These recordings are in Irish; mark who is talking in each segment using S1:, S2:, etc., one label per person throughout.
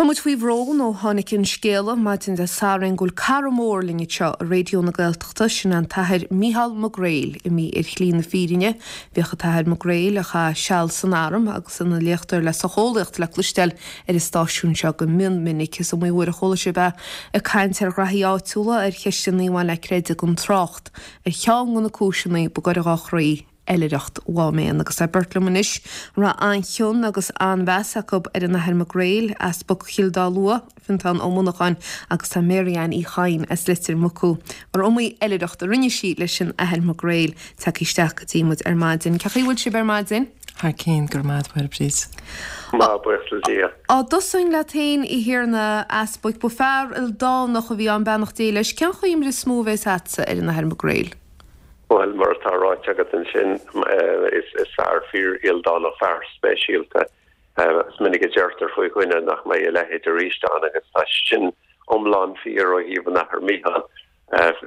S1: Tá muid faoi bhrón ó tháinig an scéala maidin Dé Sathairn go bhfuil cara mór linn anseo i Raidió na Gaeltachta, sin an tAthair Mícheál Mac Gréil, imithe ar shlí na fírinne. Bhíodh an tAthair Mac Gréil, a chaith seal san arm agus ina léachtóir le socheolaíocht le cloisteáil ar an stáisiún seo go mion minic. Is iomaí uair a chuala sibh é ag caint ar ghraithí áitiúla, ar cheisteanna a bhain le creideamh gan trácht ar cheann de na cúiseanna ba gaire dhá chroí. Oilithreacht Mhám Éan agus tá beirt liom anois a raibh an-chion agus an-mheas acu ar an Athair Mac Gréil, Easpag Chill Dá Lua, Fiontán Ó Monacháin agus tá Mary Ann Uí Chadhain as Leitir Mucú, mar iomaí oilithreacht a rinne sí leis an Athair Mac Gréil, tagtha isteach go dtí muid ar maidin. Cén chaoi a bhfuil sibh ar maidin?
S2: Thar cinn, go raibh maith agat, a Mháire Bríd.
S3: Maith, buíochas le Dia.
S1: Á dtosóinn leat féin, a Thiarna Easpaig, ba fear ildánach a bhí ann, beannacht Dé leis. Cén chuimhne is mó a bhéas a'dsa ar an Athair Mac Gréil?
S3: Bhuel, mar atá ráite agat ansin, is fear fíor-ildánach, fear speisialta. Is minic a deirtear faoi dhuine nach mbeidh a leithéid arís ann agus tá sin iomlán fíor ó thaobh an Athar Mícheál.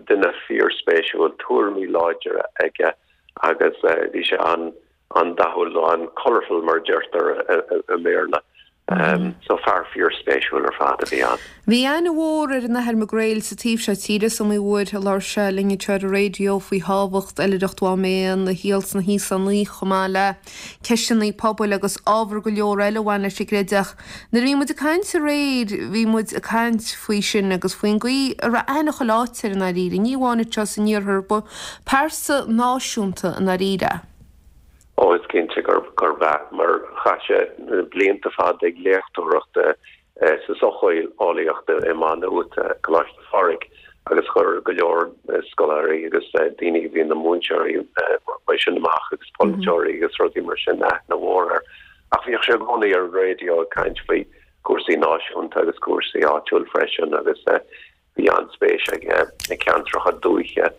S3: Duine fíorspéisiúil, tuairimí láidre aige agus bhí sé an-dathúil nó an-colourful mar a deirtear i mBéarla. So fear fíorspéisiúil ar fad a bhí ann.
S1: Bhí aithne mhór ar an Athair Mac Gréil sa taobh seo tíre. Is iomaí uair a labhair sé linn anseo ar an raidió faoi thábhacht Oilithreacht Mhám Éan, a shaol sna hÍosánaigh chomh maith le ceisteanna pobail agus ábhar go leor eile a bhain leis an gcreideamh. Nuair a bhí muid ag caint aréir bhí muid ag caint faoi sin agus faoin gcaoi a raibh aithne chuile áit air i ndáiríre, ní amháin anseo san iarthar, ba pearsa náisiúnta i ndáiríre é.
S3: Ó, is cinnte gurb ea, mar chaith sé blianta fada ag léachtóireacht sa socheolaíocht i Maigh Nuat, Coláiste Phádraig, agus chuir go leor scoláirí agus daoine a bhí ina múinteoirí uaidh sin amach agus polaiteoirí agus rudaí mar sin aithne mhór air. Ach bhíodh sé i gcónaí ar an raidió ag caint faoi chúrsaí náisiúnta agus cúrsaí áitiúil freisin agus Bhí an-spéis aige i gceantracha dúiche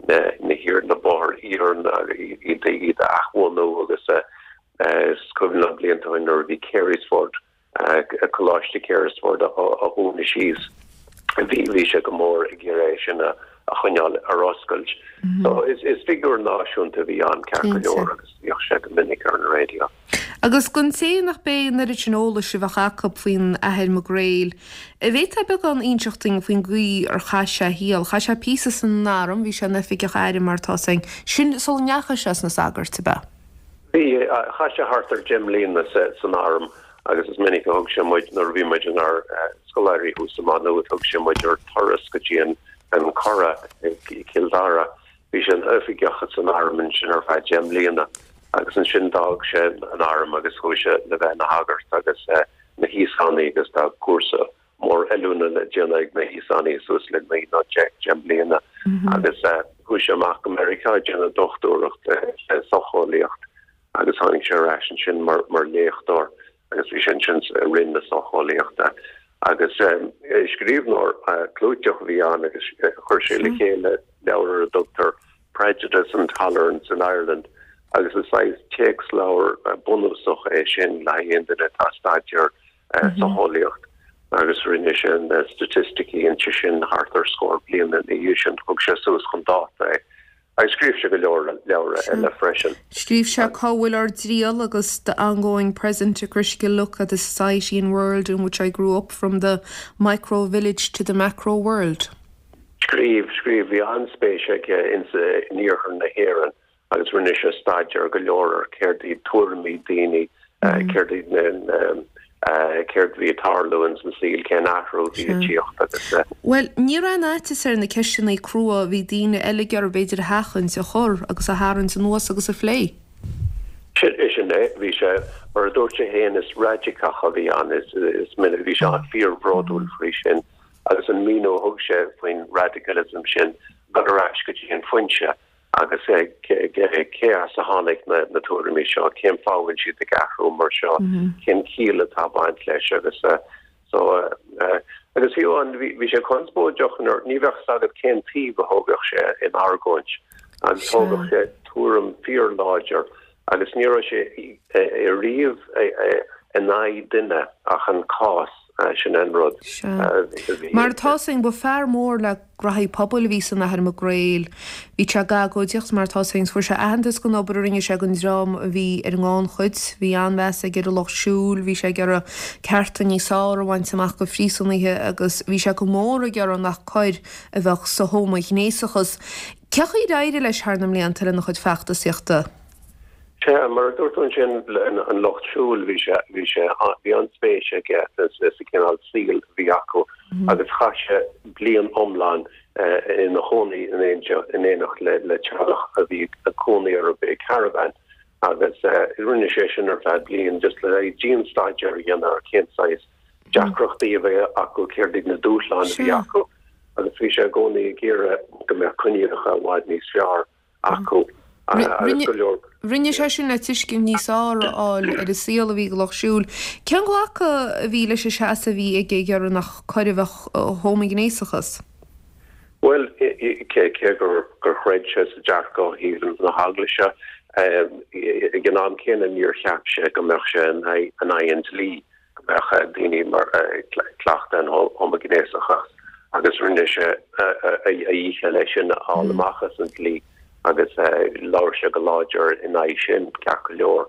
S3: na hiar, na bóithre iarainn iad iad a athbhunú agus is cuimhin liom blianta ó shin nuair a bhí Carysford, Coláiste Carysford á dhúnadh síos, bhí bhí sé go mór ag iarraidh é sin a choinneáil ar oscailt. So is is figiúr náisiúnta a bhí ann ceart go leor agus bhíodh sé go minic ar an raidió.
S1: Agus don té nach b'é an oiread sin eolais a bheadh acu faoin Athair Mac Gréil, an bhféadfá beagán a inseacht dúinn faoin gcaoi ar chaith sé a shaol? Chaith sé píosa san arm, bhí sé ina oifigeach airm mar atá 'fhios againn, sin sula ndeachaigh sé sna sagairt, ab ea?
S3: Bhí, chaith sé thart ar dheich mbliana san arm agus is minic a thug sé muid, nuair a bhí muid inár scoláirí thuas i Maigh Nuad, thug sé muid ar turas go dtí an Currach i gCill Dara. Bhí sé ina oifigeach san arm ansin ar feadh deich mbliana agus ansin d'fhág sé an arm agus chuaigh sé le bheith ina shagart agus na hÍosánaigh agus tá cúrsa mór oiliúna le déanamh ag na hÍosánaigh suas le naoi nó deich mbliana agus chuaigh sé amach go Meiriceá ag déanamh dochtúireacht sa socheolaíocht agus tháinig sé ar ais ansin mar mar léachtóir agus bhí sé ansin i Roinn na Socheolaíochta agus scríbhneoir clúiteach a bhí ann agus chuir sé le chéile leabhar ar a dtugtar Prejudice and Tolerance in Ireland agus is saghas téacsleabhar bunúsach é sin le haghaidh aon duine atá ag staidéar socheolaíocht agus rinne sé na staitisticí inti sin thart ar scór bliain ina dhiaidh sin, thug sé suas chun dáta é. Agus scríobh sé go leor leabhra eile freisin.
S1: Scríobh sé Cá bhfuil ár dTriall agus The Ongoing Present, A Critical Look at the Society and World in Which I Grew Up, From the Micro Village to the Macro World.
S3: Scríobh, scríobh. Bhí an-spéis aige in iarthar na hÉireann agus rinne sé staidéar go leor ar céard iad tuairimí daoine, céard iad na céard a bhí ag tarlú ins an saol, cén athrú a bhí ag tíocht agus.
S1: Bhuel, ní raibh aon fhaitíos air na ceisteanna crua a bhí daoine eile ag iarraidh b'fhéidir a sheachaint, a chur agus a tharraingt anuas agus a phlé.
S3: Sin, sin é. Bhí sé, mar a dúirt sé féin, is raidiceach a bhí ann, is, is minic, bhí sé fíorbhródúil faoi sin agus an míniú a thug sé faoin radicalism sin, dul ar ais go dtí an foinse. Agus cé as a tháinig na tuairimí seo, cén fáth a bhfuil siad ag athrú mar seo, cén chiall atá ag baint leis agus so agus fiú amháin bhí sé conspóideach nuair ní bheadh fhios agat cén taobh a thógadh sé in argóint agus thógadh sé tuairim fíorláidir agus ní raibh sé ariamh in aghaidh duine ach an cás. Sin an rud.
S1: Sea. Mar atá 's againn, ba fear mór le graithí pobail a bhí san Athair Mac Gréil. Bhí sé ag agóidíocht, mar atá 's againn, fuair sé aitheantas don obair a rinne sé don dream a bhí ar an ngannchuid. Bhí an-mheas aige ar an lucht siúil, bhí sé ag iarraidh cearta níos fearr a bhaint amach do phríosúnaithe agus bhí sé go mór ag iarraidh nach coir a bheadh sa homaighnéasachas. Cé chaoi ar éirigh leis thar na mblianta lena chuid feachtasaíochta?
S3: Sea, mar a dúirt tú ansin, an lucht siúil, bhí sé, bhí sé, bhí an-spéis aige sa chineál saoil a bhí acu agus chaith sé bliain iomlán ina chónaí in éineacht le teaghlach a bhí ag cónaí ar i caravan agus rinne sé sin ar feadh bliain just le dian-staidéar a dhéanamh ar cén saghas deacrachtaí a bhí acu, céard iad na dúshláin a bhí acu agus bhí sé i gcónaí ag iarraidh go mbeadh coinníollacha i bhfad níos fearr acu agus go leor.
S1: Rinne sé sin le tuiscint níos fearr a fháil ar an saol a bhí ag an lucht siúil. Cén glacadh a bhí leis an seasamh a bhí aige ag iarraidh nach coir a bheadh sa homaighnéasachas?
S3: Bhuel, cé gur chreid sé sa dearcadh ó thaobh na heaglaise, ag an am céanna níor cheap sé go mbeadh sé in aghaidh an dlí. go mbeadh daoine mar ag cleachtadh an homaighnéasachas agus rinne sé a dhícheall é sin a fháil amach as an dlí agus labhair sé go láidir in aghaidh sin, ceart go leor.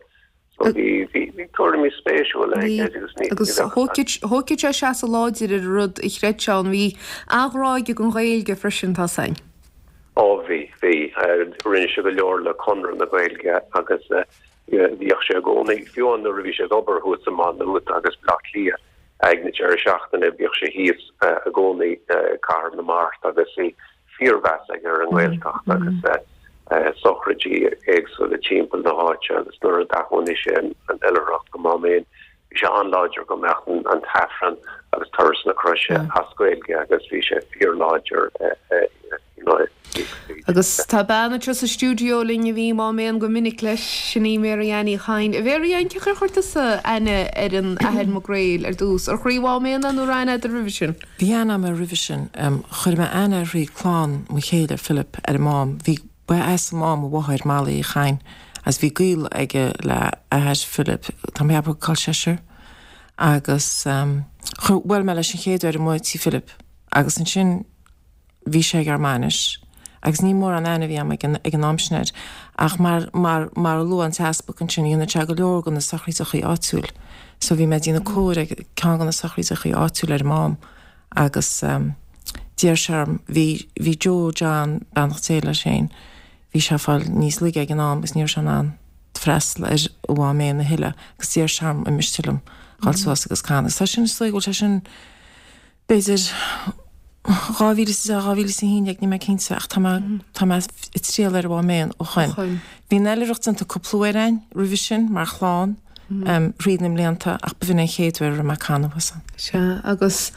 S3: So bhí bhí tuairimí spéisiúla aige
S1: agus ní Agus thógfadh sé seasamh láidir ar an rud a chreid sé ann. Bhí an-ghrá aige don Ghaeilge freisin, tá 's againn.
S3: Ó bhí, bhí. Rinne sé go leor le Conradh na Gaeilge agus Bhíodh sé i gcónaí, fiú amháin nuair a bhí sé ag obair thuas i Maigh Nuad agus Baile Átha Cliath ag na deireadh seachtaine, bhíodh sé thíos i gcónaí i gCathair na Mart agus bhí fíormheas aige ar an nGaeltacht agus sochraidí éagsúla timpeall na háite agus nuair a d'athunaigh sé an oilithreacht go Máméan, Bhí sé an-láidir go mbeadh an tAifreann agus Turas na Croise as Gaeilge agus bhí sé fíorláidir you know.
S1: Agus tá bean anseo sa stiúideo linn a bhí i Máméan go minic leis, sin í Mary Ann Uí Chadhain. A Mhary Ann, cén chaoi ar chuir tusa aithne ar an Athair Mac Gréil ar dtús? Ar chuir Mháméan é nó raibh aithne agat air roimhe sin?
S2: Bhí aithne agam air roimhe sin. Chuir mé aithne air thrí clann mo chéile, Philip, ar an Mám. Bhí. Ba as an Mám a mháthair, Molly Uí Chadhain, agus bhí gaol aige le athair Philip, tá mé ag ceapadh col seisear, agus chuir, bhuail mé leis an chéad uair amuigh tí Philip agus ansin bhí sé ag ár mbainis agus ní mórán aithne a bhí agam ag an, ag an am sin air ach mar, mar, mar a luaigh an t-easpag ansin, dhéanadh sé go leor de na sochraídeachaí áitiúil so bhí mé ag déanamh cóir ag ceann de na sochraídeachaí áitiúil ar an Mám. Agus d'iarr sé orm, bhí, bhí Joe John, beannacht Dé leis féin, bhí sé ag fáil níos laige ag an am agus ní raibh sé in ann freastal ar an Mháméan a thuilleadh agus d'iarr sé orm an miste liom dhul suas agus canadh. Agus tá sin, is dóigh go bhfuil sé sin b'fhéidir 2010, 2011, níl mé cinnte ach tá mé, tá mé ag triall ar an Mháméan ó shoin. Bhí an oilithreacht déanta cúpla uair againn roimhe sin mar chlann. thríd na mblianta ach b'in an chéad uair a raibh mé ag canadh thuas ann.
S1: Sea, agus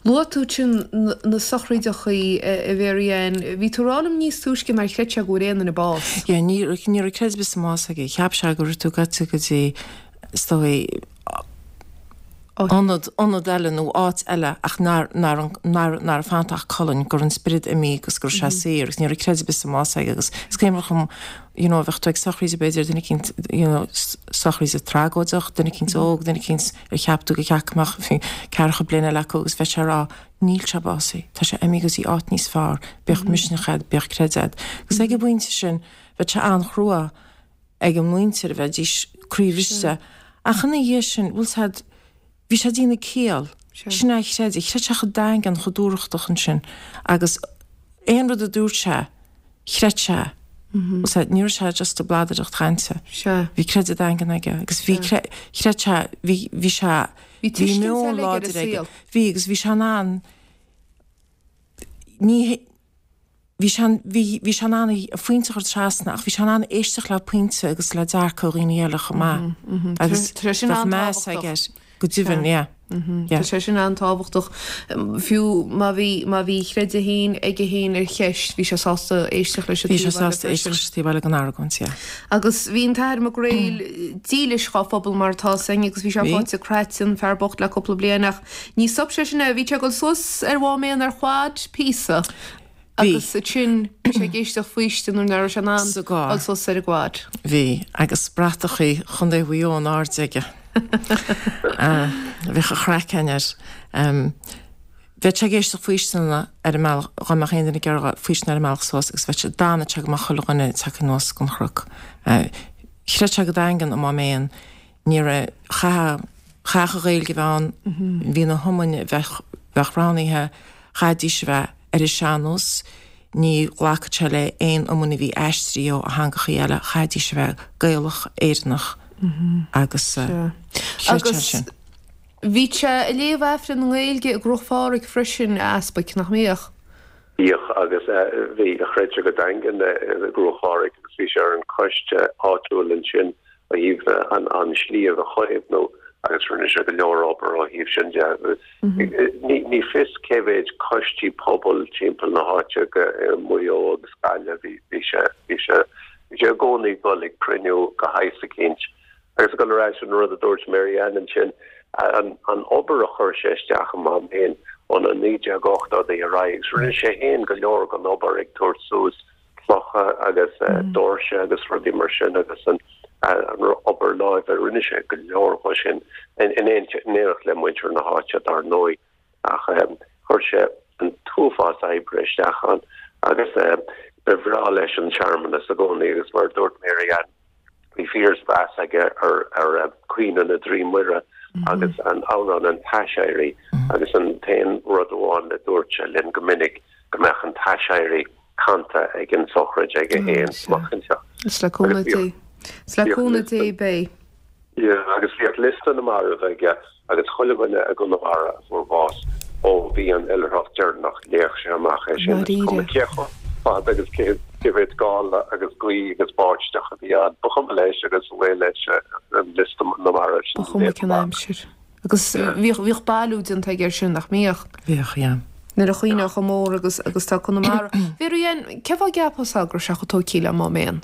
S1: luaigh tú ansin na sochraídeachaí, a Mhary Ann. Bhí tú ag rá liom níos túisce nár chreid sé go bhfuair aon duine bás.
S2: Yeah, ní raibh creideamh ar bith sa mbás aige. Cheap sé go raibh tú gaibhte go dtí, is dóigh, ionad, ionad eile nó áit eile ach nár, nár, nár, ná raibh fanta ach colainn, go raibh an spiorad imithe agus go raibh sé saor agus ní raibh creideamh ar bith sa mbás aige agus is cuimhin liom you know, bheadh tú ag sochraid b'fhéidir duine eicínt, you know, sochraid tragóideach, duine eicínt óg, duine eicínt ar cheap tú go ceart go mbeadh ceathracha bliain eile acu agus bheadh sé ag rá, níl sé básaithe, tá sé imithe go dtí áit níos fearr, bíodh misneach a'd, bíodh creideamh a'd. Agus ag an bpointe sin, bheadh sé an-chrua ag an muintir a bheidís croíbhriste. Ach ina dhiaidh sin, bhfuil 's a'd, bhí sé ag déanamh ciall, sin é a chreid, chreid sé chomh daingean, chomh dúthrachtach ansin agus aon rud a dúirt sé, chreid sé, bhfuil 's a'd, ní raibh sé just ag bladaireacht chainte. Bhí creideamh daingean aige agus bhí, chreid sé, bhí, bhí sé,
S1: bhí meon láidir aige.
S2: Bhí agus bhí sé in ann, ní, bhí sé, bhí, bhí sé in ann a phointe a chur trasna ach bhí sé in ann éisteacht le pointe agus le dearcadh dhaoine eile chomh maith agus bheadh meas aige air go deimhin, yeah,
S1: yeah. Tá sé sin an-tábhachtach. Fiú má bhí, má bhí a chreideamh féin aige féin ar cheist, bhí sé sásta éisteacht leis an
S2: taobh eile freisin. Bhí sé sásta éisteacht leis an taobh eile den argóint, yeah.
S1: Agus bhí an tAthair Mac Gréil dílis dhá phobal mar atá 's againn agus bhí sé faighte cráite, an fear bocht le cúpla bliain ach ní stop sé sin é, bhí sé ag dul suas ar Mháméan ar quad píosa agus ansin bhí sé ag éisteacht faoistin nuair nach raibh sé in ann dul suas ar an gquad.
S2: Bhí, agus bratachaí Chontae Mhaigh Eo in airde aige. Bheadh an chraiceann air. Bheadh sé ag éisteacht faoisteana ar an mbealach, dhá mbeadh aon duine ag iarraidh faoistean ar an mbealach suas agus bheadh sé, d'fhanadh sé go mbeadh chuile dhuine tagtha anuas den chnoc. Chreid sé go daingean i Mám Éan, ní raibh, chaithfeadh, chaithfeadh an Ghaeilge a bheith ann, bhí na hiomainn a bheadh, bheadh roghnaithe, chaithfidís a bheith ar an sean-nós, ní ghlacfadh sé le aon iomainn a bhí aistrithe ó theangachaí eile, chaithfidís a bheith Gaelach, Éireannach agus chreid sé sin.
S1: Bhí sé ag léamh Aifreann i nGaeilge i gCruach Phádraig freisin, a Easpaig, nach mbíodh?
S3: Bhíodh, agus bhí, chreid sé go daingean i gCruach Phádraig agus bhí sé ar an choiste áitiúil ansin ó thaobh an sliabh a chaomhnú agus rinne sé go leor obair ó thaobh sin de. Ní fios cé mhéid coistí pobail timpeall na háite i Maigh Eo agus Gaillimh, bhí sé, bhí sé, bhí sé i gcónaí ag dul ag cruinniú de shaghas eicínt. Agus ag dul ar ais an rud a dúirt Mary Ann ansin, an obair a chuir sé isteach i Mám Éan ó na 1980idí ar aghaidh, agus rinne sé féin go leor den obair ag tabhairt suas clocha agus doirse agus rudaí mar sin agus an obair láimhe, rinne sé go leor dhe sin in éineacht le muintir na háite dar ndóigh ach chuir sé an t-uafás oibre isteach ann agus ba bhreá leis an searmanas i gcónaí agus mar a dúirt Mary Ann, Bhí fíormheas aige ar Caoineadh na dTrí Muire agus an amhrán an tAiséirí agus an t-aon rud amháin a dúirt sé linn go minic go mbeadh an tAiséirí canta ag an sochraid aige féin amach
S1: anseo. Is le cúnamh Dé. Is le cúnamh Dé beidh.
S3: Yeah, agus bhíodh liosta na marbh aige agus chuile dhuine i gConamara a fuair bás ó bhí an oilithreacht deireanach, léadh sé amach é sin, is cuma cé chomh fada agus cé mhéad gála agus gaoth agus báisteach a bhí ann, ba chuma leis agus ba mhaith leis an liosta na marbh
S1: sin a léamh amach. Ba chuma cén aimsir. Agus bhíodh, bhíodh bailiú déanta aige air sin, nach mbíodh?
S2: Bhíodh, yeah.
S1: Nuair a chuimhneofá chomh mór agus, agus tá Conamara. Mary Ann, cén fáth a gceapfá go raibh sé chomh tógtha le Mám Éan?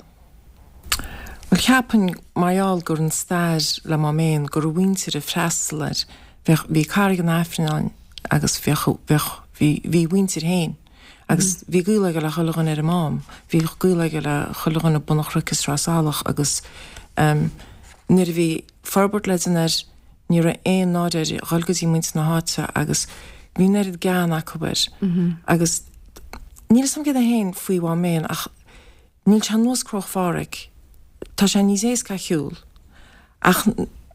S2: Bhuel, cheapfainn, mar gheall gur an stair le Mám Éan, go raibh a mhuintir ag freastal air, bheadh, bhí Carraig an Aifrinn ann agus bheadh, bheadh, bhí, bhí a mhuintir féin agus bhí gaol aige le chuile dhuine ar an Mám, bhí gaol aige le chuile dhuine Bun an Chnoic is Sraith Salach agus ehm nuair a bhí forbairt le déanamh air, ní raibh aon náire air a dhul go dtí muintir na háite agus bhí an oiread gean acu air agus níl a fhios agam céard é féin faoi Mhám Éan ach Níl sé ar nós Cruach Phádraig, tá sé níos éasca a shiúl ach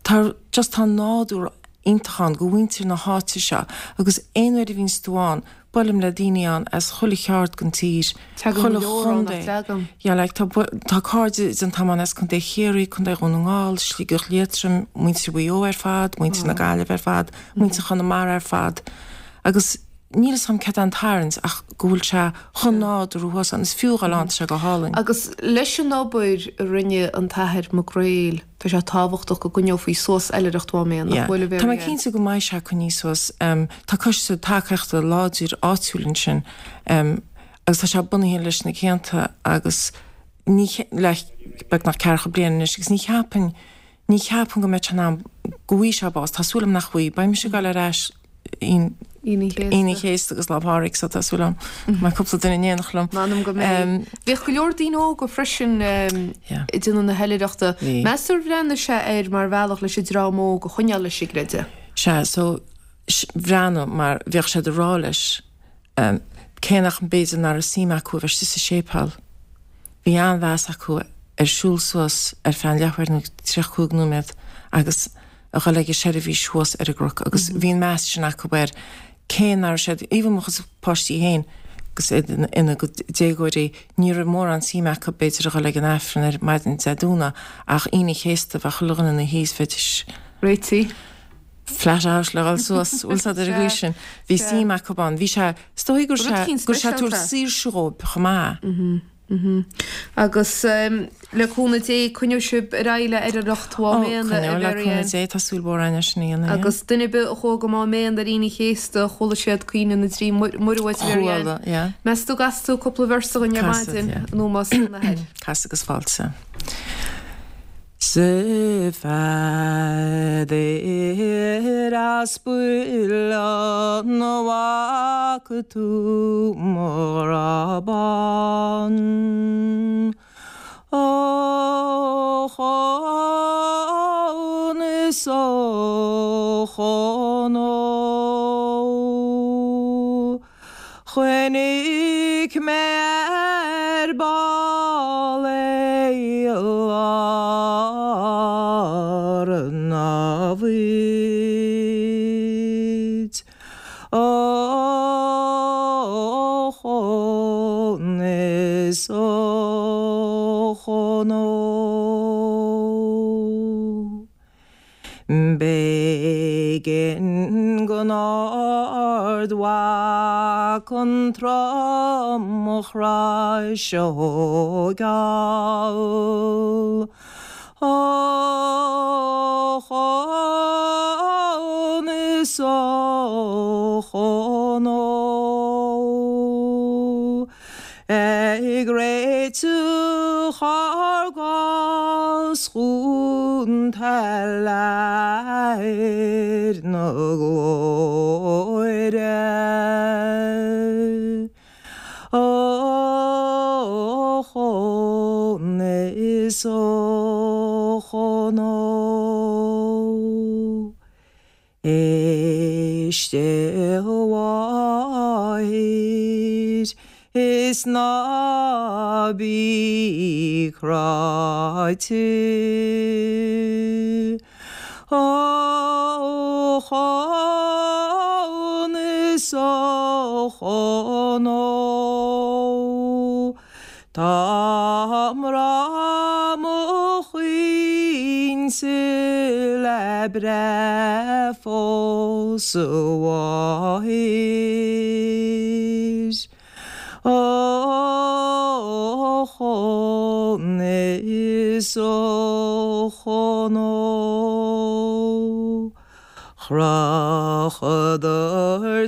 S2: tá just tá nádúr iontach ann go mhuintir na háite seo agus aon uair a bhíonns tú ann buailim le daoine ann as chuile cheard den tír,
S1: Tagann
S2: chuile
S1: go leor ann, nach
S2: chontae.
S1: dtagann?
S2: Yeah like tá tá cairde déanta agam ann as Contae Chiarraí, Contae Dhún na nGall, Sligeach Liatroim, muintir Mhaigh Eo ar fad, muintir na Gaillimhe ar fad, muintir Chonamara ar fad agus Níl fhios agam céard é an tarraingt ach go bhfuil sé chomh nádúrtha thuas ann. Is fiú a dhul ann, tá sé go hálainn.
S1: Agus leis an obair a rinne an tAthair Mac Gréil, tá sé tábhachtach go gcoinneofaí suas oilithreacht Mhám Éan, nach bhfuil, a
S2: Tá mé Mary Ann? cinnte go mbeidh sé coinnithe suas. Tá coiste tacaíochta láidir áitiúil ansin agus tá sé bunaithe leis na cianta agus ní, le beagnach ceathracha bliain anois agus ní cheapfainn, Ní cheapaim go mbeidh sé in am go bhfaighidh sé bás. Tá súil agam nach bhfaighidh. Beidh mise ag dul ar ais Aoine an Chéasta agus Lá Pádraig so tá súil agam go mbeidh cúpla duine in éineacht liom.
S1: M'anam go mbeidh. Bhíodh go leor daoine óga freisin ag déanamh na hoilithreachta. Meas tú ar bhreathnaigh sé air mar bhealach leis an dream óg a choinneáil leis an gcreideamh?
S2: Sea, so bhreathnaigh mar bhíodh siad ag rá leis Cé nach mb'fhéidir nach raibh suim acu a bheith istigh sa séipéal, bhí an-mheas acu ar siúl suas ar feadh an leathuair nó 35 nóiméad agus a dhul ag an seirbhís thuas ar an gcnoc agus bhí an meas sin acu air cé nach raibh siad, even mo chuid páistí féin agus iad ina gcuid déagóirí, ní raibh mórán suim acu b'fhéidir a dhul ag an Aifreann ar maidin Dé Domhnaigh ach Aoine an Chéasta bheadh chuile dhuine ina shuí is bheidís
S1: réitithe.
S2: flat out le dhul suas, bhfuil 's a'd ar an gcaoi sin. Bhí suim acu ann. Bhí sé, is dóigh go raibh sé, go raibh sé ag tabhairt saoirse dhóibh chomh
S1: maith. Agus le cúnamh Dé, coinneoidh sibh ar aghaidh le oilithreacht Mhám
S2: Éan, a Coinneoidh le cúnamh Dé, tá súil mhór againn é sin a dhéanamh, yeah.
S1: Agus duine ar bith a chuaigh go Mám Éan ar Aoine an Chéasta, chuala siad Caoineadh na dTrí Muire uait, a Mary Ann.
S2: Chuala, yeah.
S1: Meas tú an gcasfaidh tú cúpla véarsa dhúinn ar
S2: maidin,
S1: yeah. in ómós don Athair?
S2: Casfaidh agus fáilte. 'S a Pheadair Aspail an bhfaca tú mo ghrá bán? Ó chónas. is a Chonó. Chonaic mé ar ball é i lár an bhoird. Ochón is a Chonó. B'éigean don Ardmhac an tromchrois a thógáil. Ochón is a Chonó. Ag réiteach ár gcás chun Athair na Glóire. Ochón is a Chonó. Éist a mháthair is ná bí cráite. Ochón is a Chonó. Tá mná mo chuingse le breith fós a mháthair. Ochón is a Chonó. Chrochadar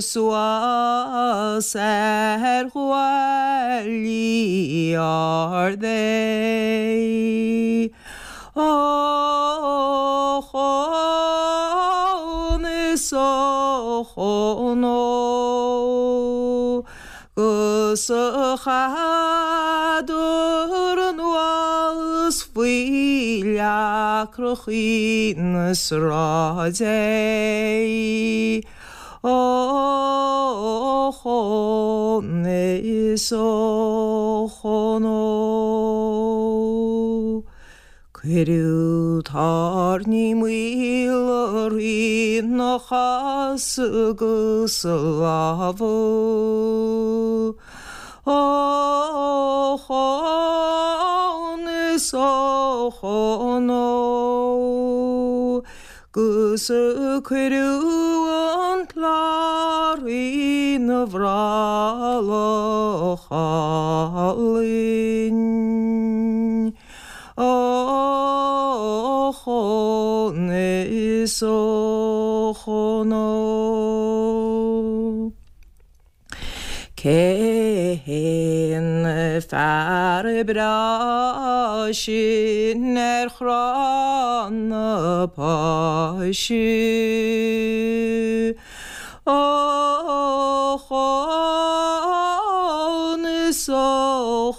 S2: suas ar ghuaillí ard é. Ochón is a Chonó. 'Gus chaitheadar anuas faoi leacrachaí na sráide é. Ochón is a Chonó. Cuireadh tairní maola ina chosa agus a lámha. Ochón is a Chonó. 'Gus cuireadh an clár ina bhrollach álainn. Ochón is a Chonó. Cén fear breá sin ar chrann na Páise? Ochón is a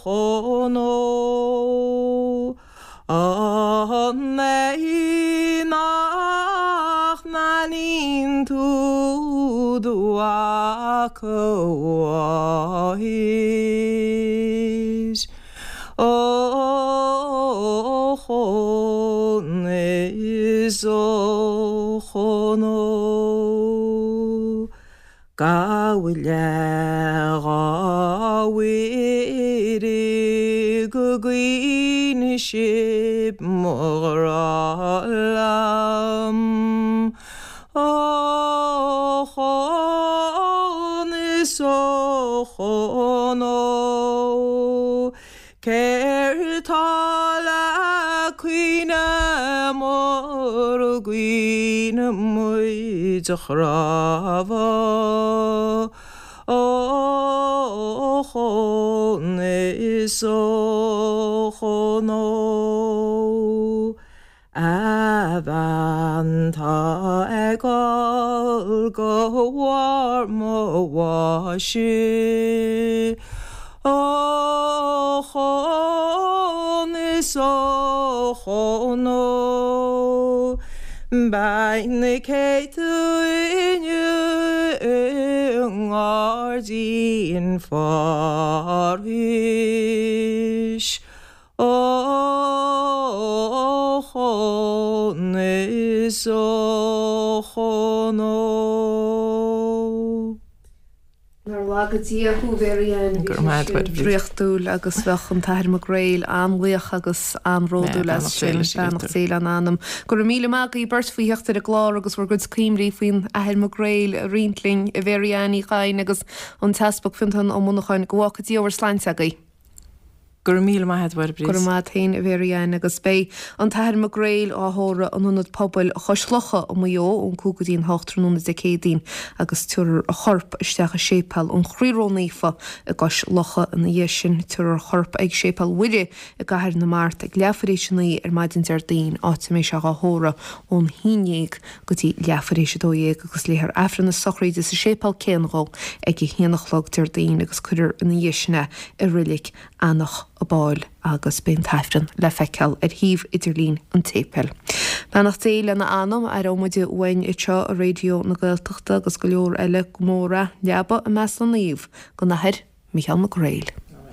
S2: Chonó. An é nach n-aithníonn tú do mhac a mháthair? Ochón is a Chonó. Gabh i leith a Mhuire go gcaoine sibh mo ghrá liom. Ochón is a Chonó. Céard tá le caoineadh mura gcaoine muid a chnámha? Ochón is a Chonó. A bhean tá ag gol go bharr mo bháis. Ochón is a Chonó. Beidh na céadta inniu i nGairdín Phárais. Ó chón is ó chón ó.
S1: Nár laga Dia thú, a Mhary Ann, bhí sé sin draíochtúil agus bheadh an tAthair Mac Gréil an-bhuíoch agus an-bhródúil as sin. Beannacht Dé lena anam. Go raibh míle maith agaibh beirt faoi theacht ar an gclár agus bhur gcuid cuimhní faoin Athair Mac Gréil a roinnt linn, a Mhary Ann Uí Chadhain agus an tEaspag Fionntán Ó Monacháin. Go bhfágfaidh Dia bhur sláinte agaibh.
S2: Go raibh míle maith a't, a Mháire
S1: Bríd. Go raibh maith a't féin, a Mhary Ann, agus beidh an tAthair Mac Gréil á thórramh in Ionad Pobail Chois Locha i Maigh Eo ón 5 go dtí an 8 tráthnóna Dé Céadaoin agus tabharfar a chorp isteach i Séipéal an Chroí Ró-Naofa i gCois Locha ina dhiaidh sin. Tabharfar a chorp ag Séipéal Mhuire i gCathair na Mart ag leathuair tar éis a 9 ar maidin Déardaoin, áit a mbeidh sé dhá thórramh ón haon dhéag go dtí leathuair tar éis a 12 agus léifear Aifreann na sochraide sa séipéal céanna dhó ag a haon a chlog Déardaoin agus cuirfear ina dhiaidh sin é i Reilig Eanach an Fháil agus beidh an tAifreann le feiceáil ar shuíomh idirlín an tséipéil. Beannacht Dé lena anam, aireoidh muid uainn anseo i Raidió na Gaeltachta agus go leor eile go mór é, leaba i measc na naomh don Athair Micheál Mac Gréil.